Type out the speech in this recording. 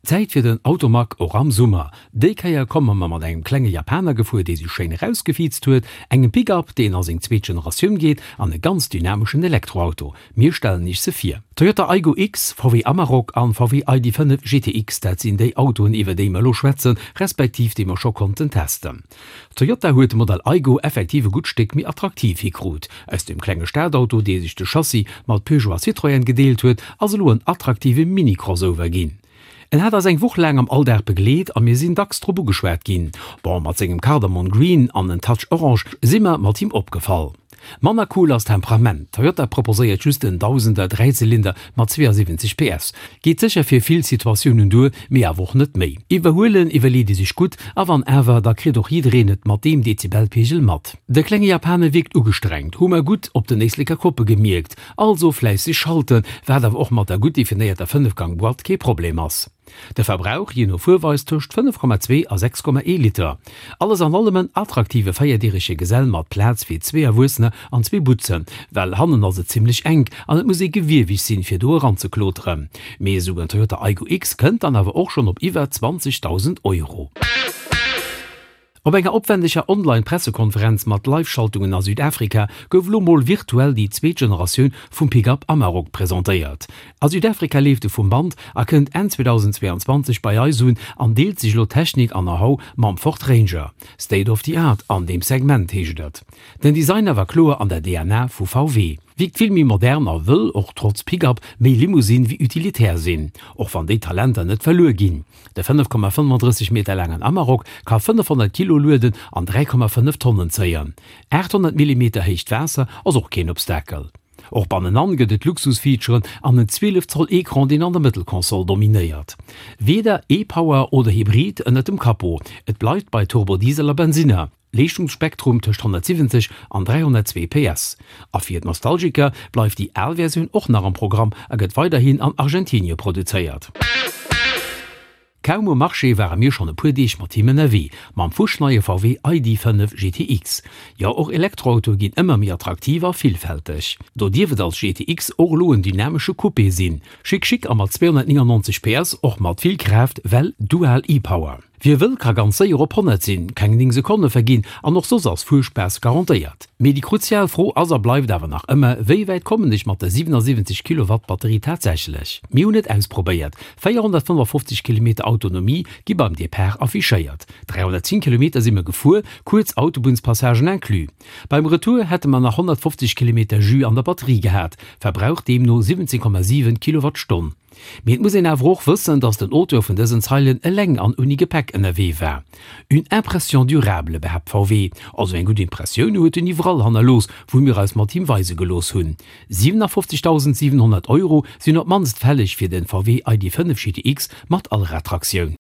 Zäit fir den Automag och am Summer. Déi Kéier komme mer mat engem klenge Japaner gefuer, dee sech schéin erausgefiizt huet, engem Pick-up, deen a seng zweet Generatioun geet, an e ganz dynameschen Elektroauto. Mir stellen iech se vir. Toyota Aygo X, VW Amarok an VW ID. 5 GTX, dat sinn déi Autoen iwwer déi mer elo schwätzen, respektiv déi mer scho konnten testen. Toyota huet de Modell Aygo effektiv e gutt Stéck méi attraktiv hikrut. Aus dem klenge Stadauto, dee sech de Chassis mat Peugeot a Citroën gedeelt huet, ass elo en attraktive Mini-Crossover ginn. En hat eis eng Woch laang am Alldag begleet a mir sinn dacks drop ugeschwat ginn. Bon, mat sengem Cardamon Green an en Touch Orange si mer mat him opgefall. Manner cool ass Temperament. Toyota proposéiert just en Dausender Dräizylinder mat 72 PS. Geet sécher fir vill Situatiounen duer, mee awer och net méi. Iwwerhuelen iwwerleet ee sech gutt, a wann awer, da kritt och jiddereen et mat deem Dezibelpegel mat. De klenge Japaner wierkt ugestrengt, hu mer gutt op den Éisleker Koppe gemierkt. Also fläisseg schalten, wat awer och mat der gutt definéierter Fënnefgang-Boîte kee Problem ass. De Verbrauch, jee no Fuerweis, tëscht 5,2 a 6,1 Liter. Alles an allem en attraktive véierdirege Gesell mat Plaz fir zwee Erwuessener an zwee Butzen, well hannen ass et zimmlech enk an et muss ee gewieweg sinn, fir do eranzekloteren. Mee esou en Toyota Aygo X kënnt dann awer och schonn op iwwer 20.000 Euro. Op enger opwendeger Online-Pressekonferenz mat Live-Schaltungen a Südafrika gouf elo mol virtuell déi zweet Generatioun vum Pick-up Amarok presentéiert. A Südafrika leeft e vum Band a kënnt Enn 2022 bei eis un an deelt sech elo Technik an Know-how mam Ford Ranger. State of the Art an deem Segment, heescht et. Den Design awer kloer an der DNA vu VW. Wierkt vill méi modern a wëll, och trotz Pick-up, méi Limousine wéi utilitär sinn, och wann déi Talenter net verluer ginn. De 5,35 Meter laangen Amarok ka 500 Kilo lueden an 3,5 Tonnen zéien. 800 Millimeter héicht Waasser ass och keen Obstakel. Och bannenan gëtt et Luxusfeaturen an en 12 Zoll Ecran, deen an der Mëttelkonsol dominéiert. Weder e-Power oder Hybrid ënnert dem Capot, et bleift bei Turbodiesel a Bensinner. Leeschtungsspektrum tëscht 170 an 302 PS. A fir d'Nostalgiker bleift déi al Versioun och nach am Programm a gëtt weiderhin an Argentinie produzéiert. Kaum um Marché ware mir schonn e puer Deeg mat him ënnerwee, mam fuschneie VW ID. 5 GTX. Jo, och Elektroautoe ginn ëmmer méi attraktiv a villfälteg. Do dierf et als GTX och elo en dynamesche Coupé sinn. Chic chic a mat 299 PS och mat vill Kraaft, well dual e-Power. Wie wëll ka ganz séier op 100 sinn, keng 9 Sekonne verginn an och soss ass Fuerspaass garantéiert. Mee déi kruzial Fro ass a bleift awer nach ëmmer, wéi wäit kommen ech mat der 77 Kilowatt Batterie tatsächlech? Mir hunn et ausprobéiert, 455 Kilometer Autonomie gi beim Depart affichéiert, 310 Kilometer si mer gefuer, kuerz Autobunnspassagen inclus. Beim Retour hätte mer nach 150 Kilometer Jus an der Batterie gehat, Verbrauch deemno 17,7 Kilowattstonn. Mee et muss een awer och wëssen, datt den Auteur vun dësen Zeilen eleng an ouni Gepäck ënnerwee war. Une impression durable, behaapt VW. Also eng gutt Impressioun huet en iwwerall hannerlooss, wou mir eis mat him weise gelooss hunn. 57.700 Euro sinn op d'mannst fälleg fir den VW ID. 5 GTX mat Allradtraktioun.